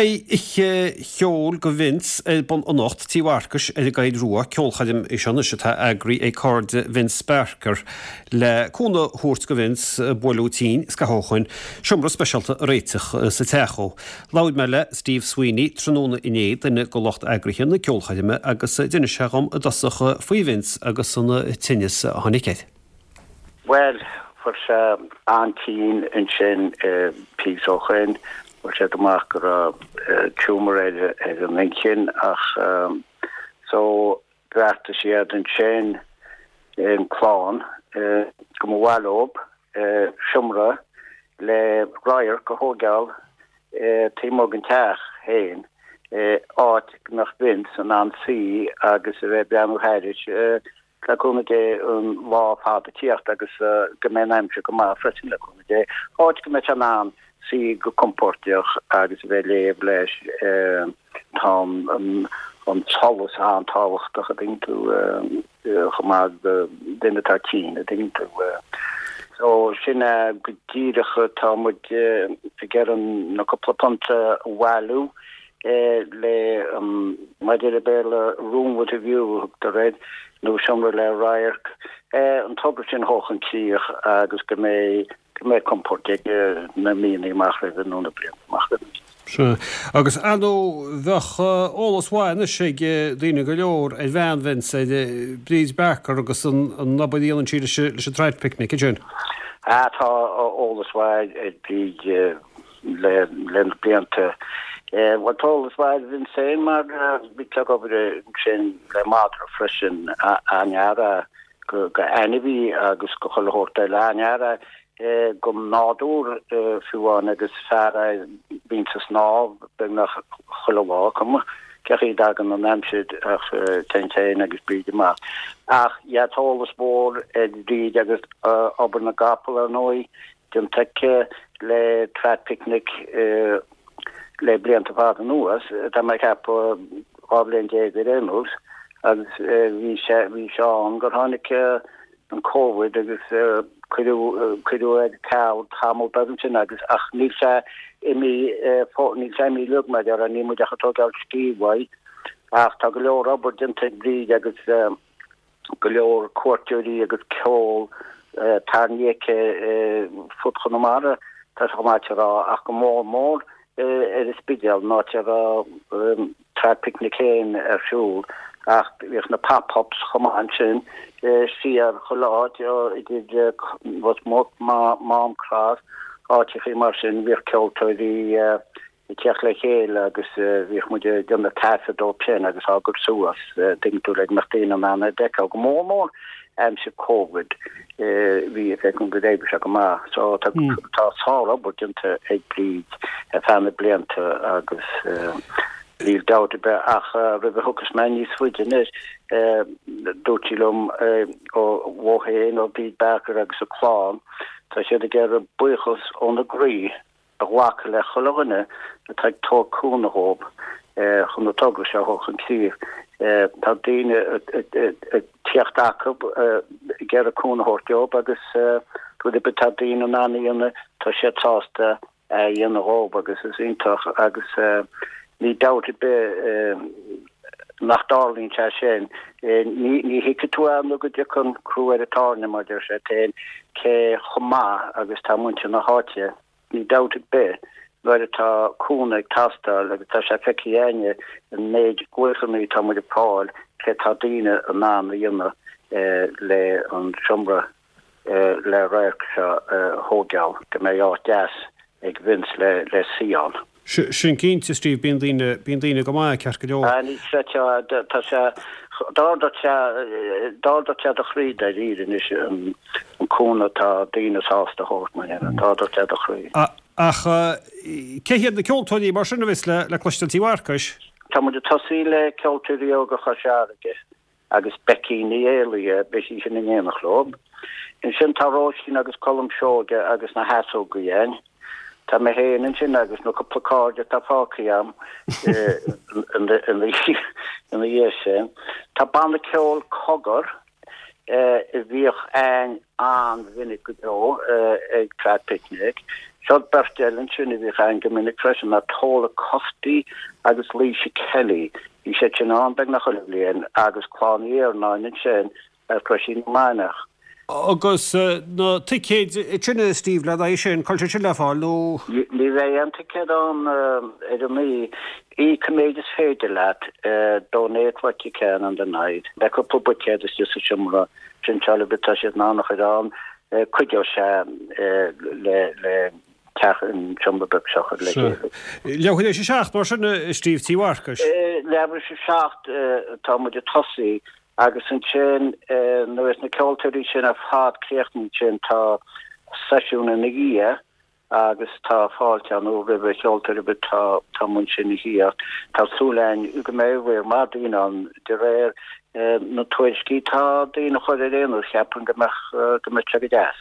Beidh oíche cheoil do Vince ar bun anocht, Tí Mharcais ar an gCoill Rua, ceolchoirm í seo anois atá eagraithe ag cairde Vince Barker le cúnamh a thabhairt do Vince a buaileadh tinn scaitheamh ó shoin, seomra speisialta a réiteach sa teach dhó. Labhair mé le Steve Sweeney tráthnóna inné, duine de lucht eagraithe na ceolchoirme agus d'inis sé dhom i dtosach faoi Vince agus an tinneas a tháinig air. Bhuel, fuair sé an-tinn ansin píosa ó shoin, fuair siad amach go raibh tumour air ar an inchinn ach so bheartaigh siad ansin, an clann, go mba mhaith leob seomra le radharc a thóigeáil taobh amuigh den teach féin, áit go mbeadh Vince in ann suí agus a bheith ag breathnú thairis. Le cúnamh Dé an lá fada ag tíocht agus go mbeidh an aimsir go maith freisin le cúnamh Dé. Áit go mbeidh sé in ann suí go compordach agus a bheith ag léamh leis. Tá an solas an-tábhachtach a dtuigeann tú chomh maith do duine atá tinn a dtuigeann tú. So sin é go díreach tá muid ag iarraidh na cúpla punt a bhailiú le mar a deir an Béarla room with a view a thugtar air, nó seomra le radharc, an togra sin a thabhairt chun críoch agus go mbeidh go mbeidh compord aige na míonna amach roimhe nó na blianta amach roimhe. Sea. Agus ar ndóigh bheadh eolas mhaith anois ag daoine go leor ar bhean Vince, ar Bríd Barker agus an obair a dhéanann sí leis an Trad Picnic ansin. Ah tá eolas mhaith ar Bhríd. le na blianta. Bhuel tá eolas mhaith ar Vince féin mar bhí sé ag obair ansin le madra freisin, an-fhear é go ainmhí agus go chuile shórt eile, an-fhear é don nádúr fiú amháin agus fear é a bhíonns ag snámh beagnach chuile lá, cuma cé chaoi a dtagann an aimsir ach téann sé féin agus Bríd amach. Ach yeah tá eolas mhór ar Bhríd agus obair na gcapall ar ndóigh. déanta aici le Trad Picnic le blianta fada anuas, tá mé ag ceapadh 12 bhliain ar aon nós, agus bhí sé bhí sé ann gur tháinig an Covid agus cuireadh cuireadh ar ceal tamall beag ansin agus ach níl sé imithe níl sé imithe uilig mar a déarfá, níl muid ach ag tógáil scíth uaidh ach tá go leor obair déanta ag Bríd agus go leor cuairteoirí agus ceol tarraingthe aici fud Chonamara, tá sé chomh maith a rá, ach go mór mór ar an Spidéal, an áit a raibh Trad Picnic féin ar siúl, ach bhíodh na pop-ups chomh maith ansin, siar chuile áit, idir Ros Muc, Mám Cross, áiteachaí mar sin, bhíodh ceoltóirí ag teacht le chéile agus bhíodh muid ag déanamh taifead dóibh sin agus á gcur suas, tuigeann tú, le go mbeadh daoine in ann é a fheiceáil, go mór mór aimsir Covid, bhí a fhios agam go d'oibrigh sé go maith. So tá tá sár-obair déanta ag Bríd ar feadh na blianta agus níl dabht ar bith ach roimh a thiocfas mé níos faide anois, dúirt sí liom ó féin, ó Bhríd Barker agus a clann, tá siad ag iarraidh buíochas óna gcroí a ghlacadh le chuile dhuine atá ag tabhairt cúnamh dhóibh chun an togra seo a thabhairt chun críche. Tá daoine ag tíocht acu ag iarraidh cúnamh a thabhairt dóibh agus rud ar bith atá daoine in ann a dhéanamh, tá siad sásta é a dhéanamh dhóibh agus is iontach agus níl dabht ar bith nach dtarlaíonn sé sin. Ní thuigfidh tú é nó go dtiocfaidh an crú ar an tairne, mar deir siad féin, cé chomh maith agus tá muintir na háite. Níl dabht ar bith, nuair atá cúnamh ag teastáil, agus tá sé feicthe againne an méid glaochanna atá muid ag fáil, cé tá daoine in ann a dhéanamh le an seomra le radharc seo a thóigeáil, go mbeidh áit deas ag Vince le suí ann. Sin cinnte, Steve, bíonn daoine, bíonn daoine go maith, ceart go leor. Ah, ní chreidfeá, tá sé, d'ardódh sé, d'ardódh sé do chroí dáiríre anois an cúnamh atá daoine sásta a thabhairt, mar dhea, d'ardódh sé do chroí. Ach cé hiad na ceoltóirí mar sin a bheas le cloisteáil Tí Mharcais? Tá muid ag tosaí le Ceoltóirí Óga Chois Fharraige. agus Becky Ní Éalaithe, beidh sí sin in éineacht leo. Ansin tá Róisín agus Colm Seoige agus na hEasógaí ann. Tá mé féin ansin agus na cúpla cairde atá fágtha agam ina dhiaidh sin. Tá banna ceoil Cogar a bhíodh ann an-mhinic go deo ag Trad Picnic. Seo beirt eile ansin a bhíodh ann go minic freisin ná Tola Cufty agus Laoise Kelly. Bhí siad sin ann beagnach chuile bhliain agus Clann Uí Iarnáin ansin ar Chroisín na Maineach. Agus na ticéid sin a Steve le haghaidh sin, cá bhfuil siad sin le fáil nó? Ní bheidh aon ticéad ann ar an oíche. Íoc an méid is féidir leat, donate what you can on the night. Beidh cúpla buicéad istigh sa seomra printeála but tá siad in ann a chur ann. Cuideoidh sé le teach an seomra beag seo a chur le chéile. Leathuair tar éis 7 mar sin, a Steve, Tí Mharcais? Leathuair tar éis 7 atá muid ag tosaí agus ansin nuair a bheas na ceoltóirí sin ar fad críochnaithe ansin tá seisiún ina dhiaidh agus tá fáilte ann roimh na ceoltóirí but tá tá muid ansin a thíocht. Tá súil againn go mbeidh riar maith daoine ann de réir na tuairiscí tá daoine a chur ar aon nós cheapfainn go mbeadh go mbeadh sé go deas.